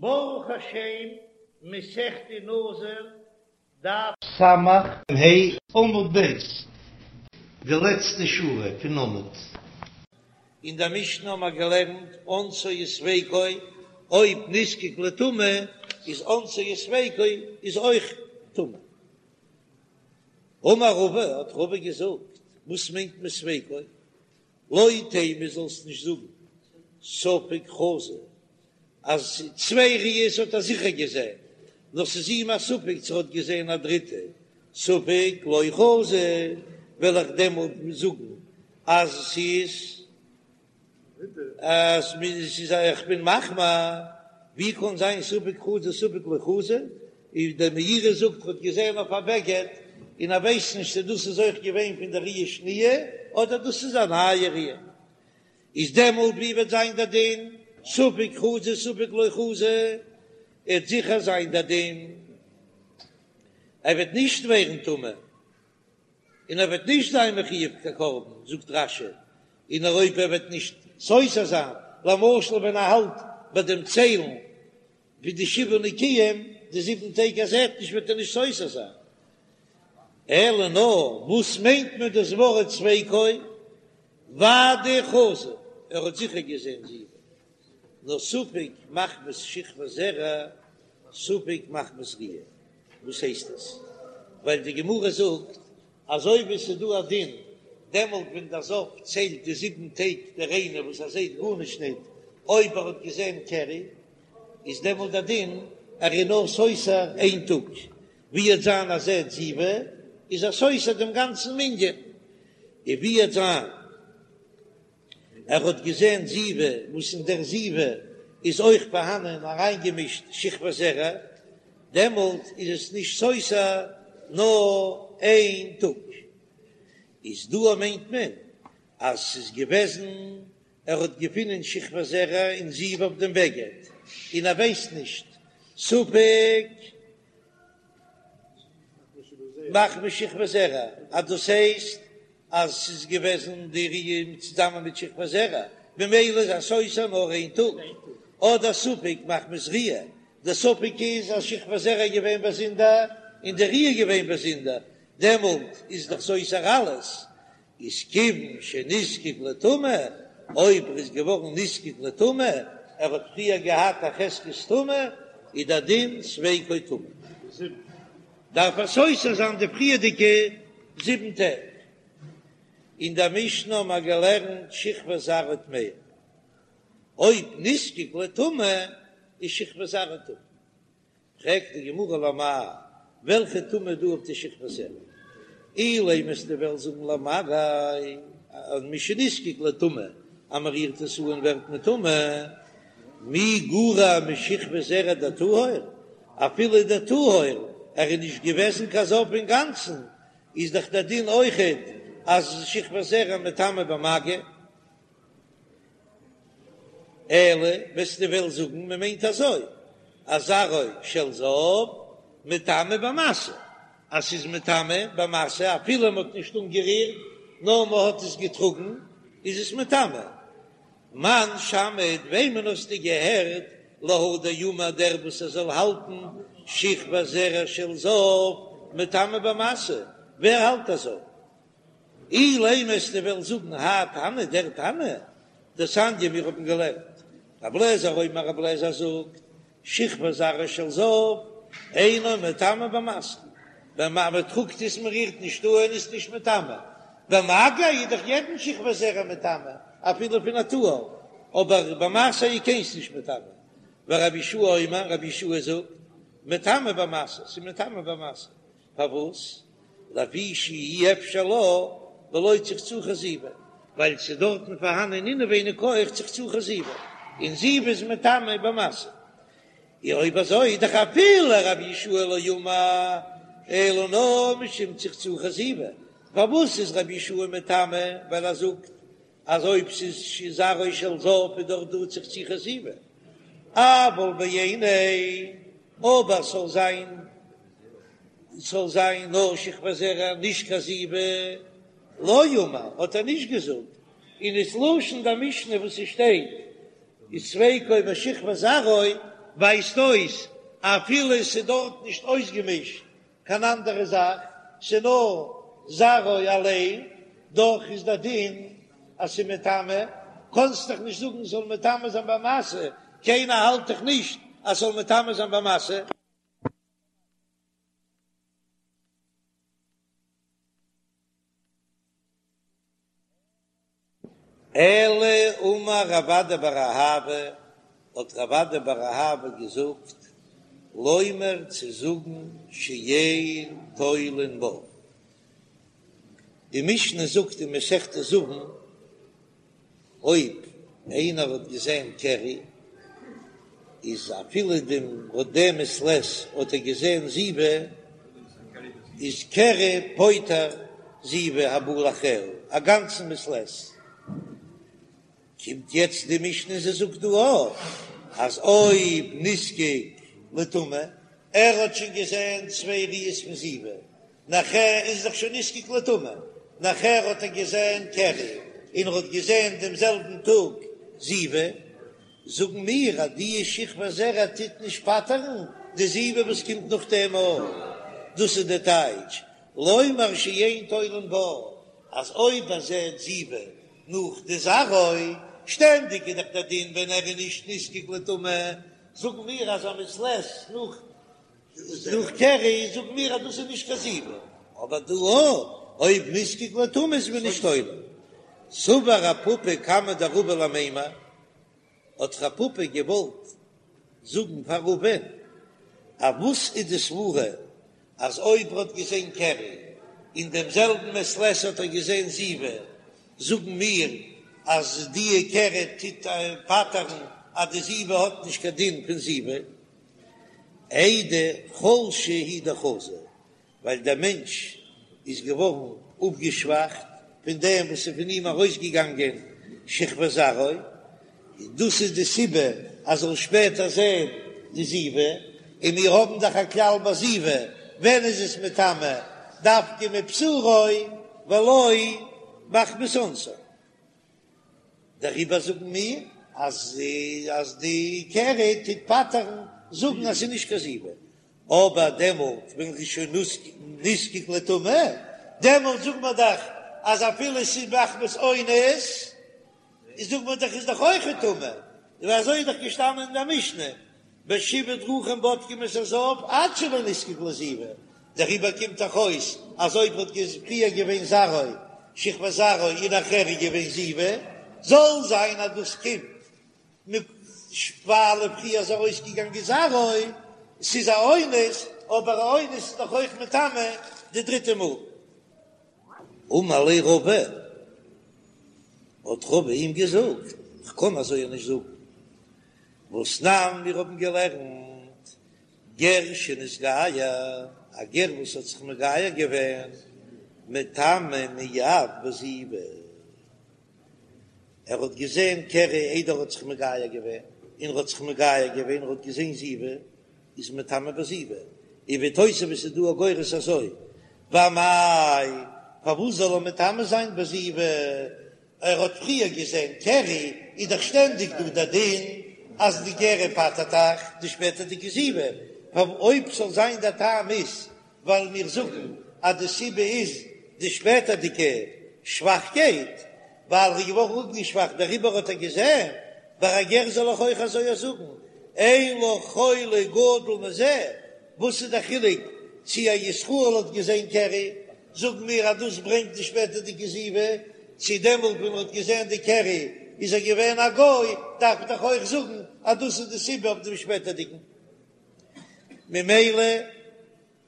ברוך השם, מסכת נזיר, דף סמך ה' עמוד ב', די לעצטע שורה פון עמוד. אין דער משנה האבן מיר געלערנט אונסו וספיקו, אויב נזקק לטומאה איז אונסו וספיקו איז אויך טמא. אמר רבא, האט רבא געזאגט, וואס מיינט מען ספיקו? לא תימא זאלסט נישט זאגן ספק חזא אז צוויי ראיות האט ער זיכער געזען, נאר ס'איז אים א ספק צו ער האט געזען א דריטע, ספק לא חזא, וועל איך דעמאלט זאגן אז ס'איז אז ס'איז איך בין מחמיר, ווי קען זיין ספק חזא ספק לא חזא, איז דער מאירי זאגט ער האט געזען אויף א בגד און ער ווייסט נישט צו דאס איז אויך געווען פון די ראיה שניה אדער דאס איז א נייע ראיה, איז דעמאלט ווי וועט זיין דער דין ספק חזא ספק לא חזא, עט זיכער זיין דער דין ער וועט נישט ווערן טמא און ער וועט נישט זיין מחויב קיין קרבן, זאגט רש"י, און אויב ער וועט נישט סותר זיין, למשל ווען ער האלט ביי דעם ציילן ווי די שבעה נקיים, די זיבן טעג ער זעט נישט וועט ער נישט סותר זיין. אלא נאר וואס מיינט מען דאס ווארט ספיקו? ודאי חזא, ער האט זיכער געזען זיבה, נאר ספק מחמת שכבת זרע, ספק מחמת ראיה. וואס הייסט עס? ווייל די גמרא זאגט אזוי ווי ס'איז דא א דין דעמאלט ווען דער זב ציילט די זיבן טעג די ריינע וואס ער זעט גארנישט ניט, אויב ער האט געזען קרי איז דעמאלט דער דין ער איז נאר סותר איין טאג, ווי עט זיין אז ער זעט זיבה איז ער סותר דעם גאנצן מנין, און ווי עט זיין ער האט געזען זיבה וואס אין דער זיבה איז אויך פארהאנען אריינגעמישט שכבת זרע, דעמאלט איז עס נישט סותר נאר איין טאג. איז דא מיינט מען אז ס'איז געוועזן ער האט געפונען שכבת זרע און זיבה אויף דעם בגד און ער ווייסט נישט ספק מחמת שכבת זרע אז דאס הייסט אז ס'איז געוועזן די ראיה צוזאמען מיט שכבת זרע, ממילא איז ער סותר נאר איין טאג, אדער ספק מחמת ראיה, די ספק איז אז שכבת זרע איז געווען באזונדער און די ראיה איז געווען באזונדער, דעמאלט איז דאך סותר אלעס, איז כיוון שנזקק לטומאה, אויב ער איז געווארן נזקק לטומאה, ער האט פריער געהאט א חזקת טומאה, איז דער דין ספיקו טמא. דארף ער סותר זיין די פריערדיגע זיבן טעג. אין דער משנה האבן מיר געלערנט שכבת זרעו טמאה, אויב נזקק לטומאה איז שכבת זרעו טמא. פרעגט די גמרא למאי, וועלכע טומאה איז דא אויף די שכבת זרע? אילימא וועסטו וועלן זאגן למגע, אז משנזקק לטומאה, אז מען רירט עס אן ווערט מען טמא, מי גרע משכבת זרע דטהור, אפילו דטהור, ער איז נישט געוועזן קיין זב אינגאנצן, איז דאך דער דין אויכעט אז שכבת זרע מטמא במגע. אלא וועסטו וועלן זאגן מען מיינט אזוי אז זרעו של זב מטמא במשא, אז ס'איז מטמא במשא אפילו מ'האט נישט אנגערירט נאר מ'האט עס געטראגן איז עס מטמא. מאן שמעת וועמען האסטו געהערט להא דאמר דער וואס ער זאל האלטן שכבת זרע של זב מטמא במשא, ווער האלט אזוי? אילימא וועסטו וועלן זאגן האי תנא דער תנא דתניא מיר האבן געלערנט רבי אליעזר אומר רבי אליעזר זאגט שכבת זרעו של זב אינו מטמא במשא ווען מען טראגט עס מען רירט נישט אן איז נישט מטמא במגע איז דאך יעדן שכבת זרע מטמא אפילו פון א טהור אבער במשא איז קיינס נישט מטמא ורבי יהושע אומר רבי יהושע זאגט מטמא במשא ס'איז מטמא במשא פארוואס? לפי שאי אפשר לה בלא צחצוחי זיבה, ווייל ס'איז דארטן פארהאנען אינעווייניג אויך צחצוחי זיבה, און זיבה איז מטמא במשא. און אויב אזוי איז דאך אפילו רבי יהושע לא אמר אלא נאר משום צחצוחי זיבה, פארוואס איז רבי יהושע מטמא? ווייל ער זאגט אז אויב ס'איז זרעו של זב איז דאך דא צחצוחי זיבה, אבל בעיניה, אבער ס'זאל זיין ס'זאל זיין נאר שכבת זרע נישט קיין זיבה, לא אמר האט ער נישט געזאגט, און איז לשון די משנה וואס ס'שטייט איז ספיקו בשכבת זרעו. ווייזט אויס אפילו עס איז דארט נישט אויסגעמישט קיין אנדערע זאך, ס'איז נאר זרעו אליין, דאך איז דער דין אז ס'איז מטמא, קאנסט דאך נישט זאגן ס'זאל מטמא זיין במשא, קיינער האלט דאך נישט אז ס'זאל מטמא זיין במשא. אלא אמר רב אדא בר אהבה, האט רב אדא בר אהבה געזאגט, לומר צו זאגן שאין תולין בה. די משנה זאגט אין מסכת זבין, אויב איינער האט געזען קרי, איז אפילו דעם דעם מעת לעת האט ער געזען זיבה, איז קרי פוטר זיבה הבא לאחריה א גאנצן מעת לעת. קומט יעצט די משנה און זי זאגט דא אויך אז אויב נזקק לטומאה, ער האט שוין געזען צוויי ראיות פון זיבה, נאכער איז דאך שוין נזקק לטומאה, נאכער האט ער געזען קרי און ער האט געזען דעם זעלבן טאג זיבה, זאגן מיר אז די שכבת זרע טוט נישט פטר'ן די זיבה וואס קומט נאכדעם אויך, דאס איז די טייטש לומר שאין תולין בה, אז אויב ער זעט זיבה נאך די זרעו, שטענדיג איז דאך דער דין ווען ער איז נישט נזקק לטומאה, זאגן מיר אז א מעת לעת נאך נאך קרי זאגן מיר אז דאס איז נישט קיין זיבה, אבער דא אויב נזקק לטומאה איז מען נישט תולה. סבר רב פפא קמיה דרבא למימר, האט רב פפא געוואלט זאגן פאר רבא'ן אז וואס איז די סברה אז אויב ער האט געזען קרי אין דעם זעלבן מעת לעת האט ער געזען זיבה, זאגן מיר אז די קרי טוט פטר'ן אז די זיבה האט נישט קיין דין פון זיבה. איידי חלשה הוא דחזא, ווייל דער מענטש איז געווארן אפגעשוואכט פון דעם וואס איז פון אים ארויסגעגאנגען שכבת זרעו, און דאס איז די סיבה אז זאל שפעטער זען די זיבה, און מיר האבן דאך א כלל ביי זיבה, ווען איז עס מטמא דווקא מבשרו ולא מחמת אונסו. דעריבער זאגן מיר אז אז די קרי טוט פטר'ן זאגן אז ס'איז נישט קיין זיבה, אבער דעמאלט ווען ר'איז שוין נזקק לטומאה, דעמאלט זאגט מען דאך אז אפילו ס'איז מחמת אונס, איז זאגט מען דאך איז דאך אויך טמא, און אזוי איז דאך געשטאנען אין די משנה, בשבעה דרכים בודקים את הזב עד שלא נזקק לזיבה, דעריבער קומט דאך אויס אז אויב האט פריער געווען זרעו שכבת זרעו און נאכער איז געווען זיבה, זאל זיין אז דאס קומט מיט ווייל פריער איז ארויסגעגאנגען זרעו, ס'איז א אונס, אבער א אונס איז דאך אויך מטמא די דריטע מאל. אמר ליה רבא, האט רבא אים געזאגט, כ'קען אזוי נישט זאגן, והתנן מיר האבן געלערנט גר שנתגייר, א גר וואס האט זיך מגייר געווען, מטמא מיד בזיבה, ער האט געזען קרי איידער ער האט זיך מגייר געווען, און ער האט זיך מגייר געווען, ער האט געזען זיבה, איז מטמא בזיבה, און ווי תוספות איז דא א גורס אזוי, ואמאי, פארוואס זאל ער מטמא זיין בזיבה? ער האט פריער געזען קרי, איז דאך שטענדיג דא דער דין אז די קרי פטר'ט דאך די שפעטערדיגע זיבה, אויב ס'זאל זיין דער טעם איז ווייל מיר זאגן אז די סיבה איז די שפעטערדיגע שוואכקייט, ווייל ער איז געווארן אפגעשוואכט דעריבער האט ער געזען, ביי א גר זאל איך אויך אזוי זאגן, אין לך חולי גדול מזה, וואס איז דער חילוק צי א ישראל האט געזען קרי זאגן מיר אז דאס ברענגט די שפעטערדיגע זיבה, צו דעמאלט ווען מען האט געזען די קרי איז ער געווען א גוי, דארף מען דאך אויך זאגן אז דאס איז די סיבה אויף דעם שפעטערדיגן. ממילא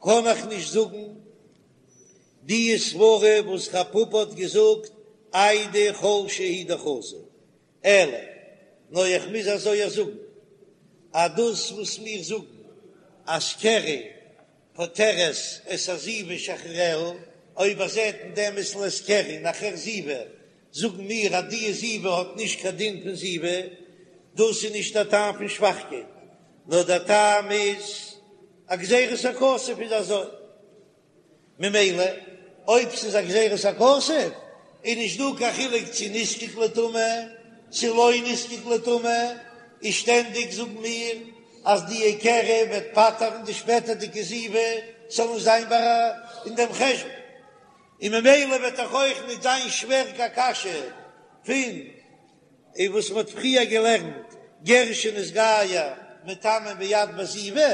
קען איך נישט זאגן די סברה וואס רב פפא האט געזאגט איידי חלשה הוא דחזא, אלא נאר איך מוז אזוי זאגן אז דאס וואס מיר זאגן אז קרי פוטרת את הזיבה שאחריה, אויב ער זעט אין דעם מעת לעת קרי נאכער זיבה, זאגן מיר אז די זיבה האט נישט קיין דין פון זיבה, דאס איז נישט א טעם פון שוואכקייט, נאר דער טעם איז א גזירת הכתוב איז אזוי. ממילא אויב ס'איז א גזירת הכתוב איז נישט דא קיין חילוק צו נזקק לטומאה צו לא נזקק לטומאה, איז שטענדיג זאגן מיר. אז די קרי וועט פטר'ן די שפעטערדיגע זיבה ס'זאל נישט זיין ביי אין דעם חשבון, און ממילא וועט דאך אויך נישט זיין שווער קיין קשיא פון און וואס מ'האט פריער געלערנט גר שנתגייר מטמא מיד בזיבה,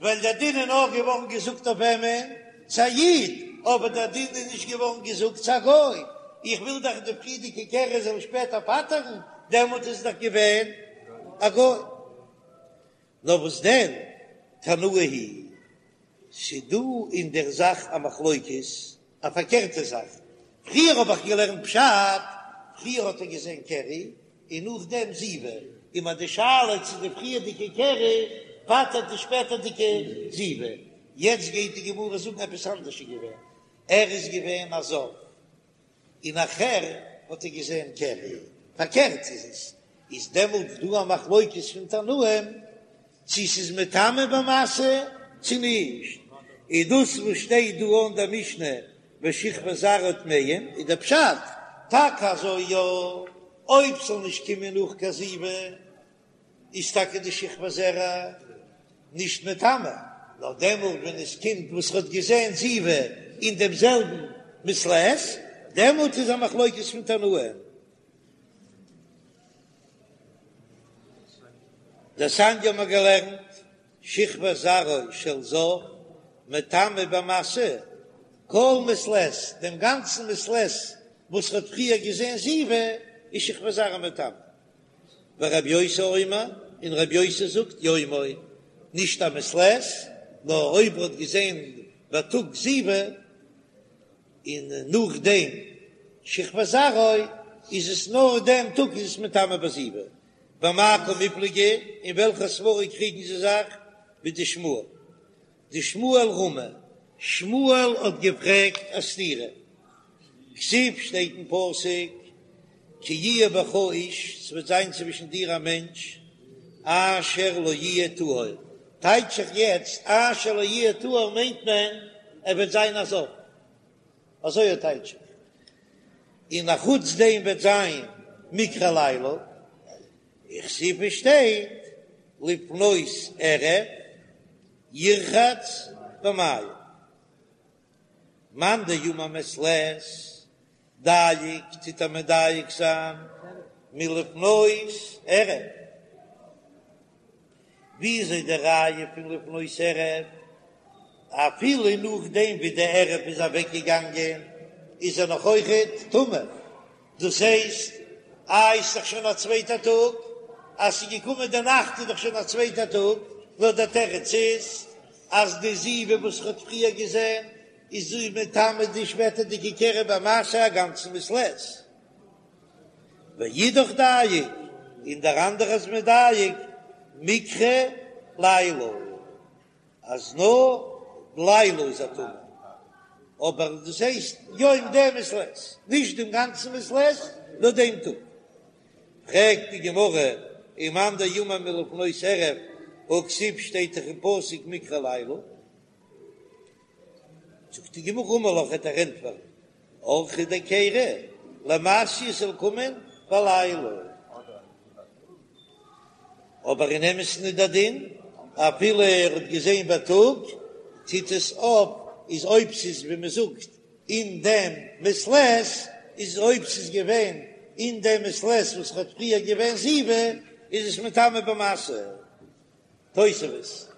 ווייל דער דין איז נאר געווארן געזאגט אויף וועמען? צו א איד, אבער דער דין איז נישט געווארן געזאגט צו א גוי, איך וויל דאך די פריערדיגע קרי זאל שפעטער פטר'ן, דעמאלט איז דאך געווען א גוי. נאר וואס דען, תנאי היא, ס'דא אין דער זאך א מחלוקת, א פארקערטע זאך, פריער האב איך געלערנט פשט, פריער האט ער געזען קרי און נאכדעם זיבה, און מ'האט די שאלה צו די פריערדיגע קרי פטר'ט די שפעטערדיגע זיבה, יעצט גייט די גמרא זאגן עפעס אנדערש איז געווען, ער איז געווען א זב, און נאכער האט ער געזען קרי, פארקערט איז עס, איז דעמאלט דא א מחלוקת פון תנאים צו ס'איז מטמא במשא צו נישט, איז דאס וואס שטייט דא אין דער משנה ושכבת זרעו טמאים איז דער פשט טאקע אזוי יא, אויב ס'זאל נישט קומען נאך קיין זיבה איז טאקע די שכבת זרע נישט מטמא, נאר דעמאלט ווען עס קומט וואס ר'האט געזען זיבה אין דעם זעלבן מעת לעת, דעמאלט איז א מחלוקת פון תנאים. דתניא האבן מיר געלערנט, שכבת זרעו של זב מטמא במשא כל מעת לעת, דעם גאנצן מעת לעת וואס ר'האט פריער געזען זיבה איז שכבת זרעו מטמא. ורבי יוסי אומר, און רבי יוסי זאגט יומו, נישט א מעת לעת, נאר אויב ר'האט געזען בייטאג זיבה, און נאכדעם שכבת זרעו, איז עס נאר דעם טאג איז עס מטמא בזיבה. במאי קמיפלגי, אין וועלכע סברא קריגן זיי זיך? בדשמואל. דשמואל רמי, שמואל האט געפרעגט א סתירה. כתיב שטייט אין פסוק כי יהיה בך איש, ס'וועט זיין צווישן דיר א מענטש, אשר לא יהיה טהור, טייטש איך יעצט אשר לא יהיה טהור מיינט מען ער וועט זיין א זב, אזוי טייטש איך, און אחוץ דעם וועט זיין מקרה לילה, וכתיב שטייט לפנות ערב ירחץ במים. מאן דאמר מעת לעת דייק טוט ער מדייק זיין מלפנות ערב, וויאזוי די ראיה פון לפנות ערב, אפילו נאכדעם ווי די ערב איז אוועק געגאנגען איז ער נאך אויכעט טמא, דאס הייסט איי ס'איז דאך שוין א צווייטע טאג, אז ס'איז געקומען די נאכט איז דאך שוין א צווייטע טאג, נאר דער תירוץ איז אז די זיבה וואס ר'האט פריער געזען איז זי מטמא די שפעטערדיגע קרי במשא א גאנצן מעת לעת. ואידך דייק, און דער אנדערע איז מדייק מקרה לילה. אז נאר לילה איז ער טמא, אבער דאס הייסט יום דעם מעת לעת, נישט דעם גאנצן מעת לעת, נאר דעם טאג. פרעגט די גמרא, ומאן דאמר מלפנות ערב, והכתיב שטייט דאך אין פסוק מקרה לילה. זאגט די גמרא אמר לך וועט ער ענטפערן, אורחא דקרי למיתי ס'זאל קומען בלילה. אבער אין אמת'ן איז דער דין, אפילו ער האט געזען בייטאג, טוט עס אויף, איז אויב ס'איז ווי מ'זאגט אין דעם מעת לעת, איז אויב ס'איז געווען אין דעם מעת לעת וואס האט פריער געווען זיבה, איז עס מטמא במשא. תוספות.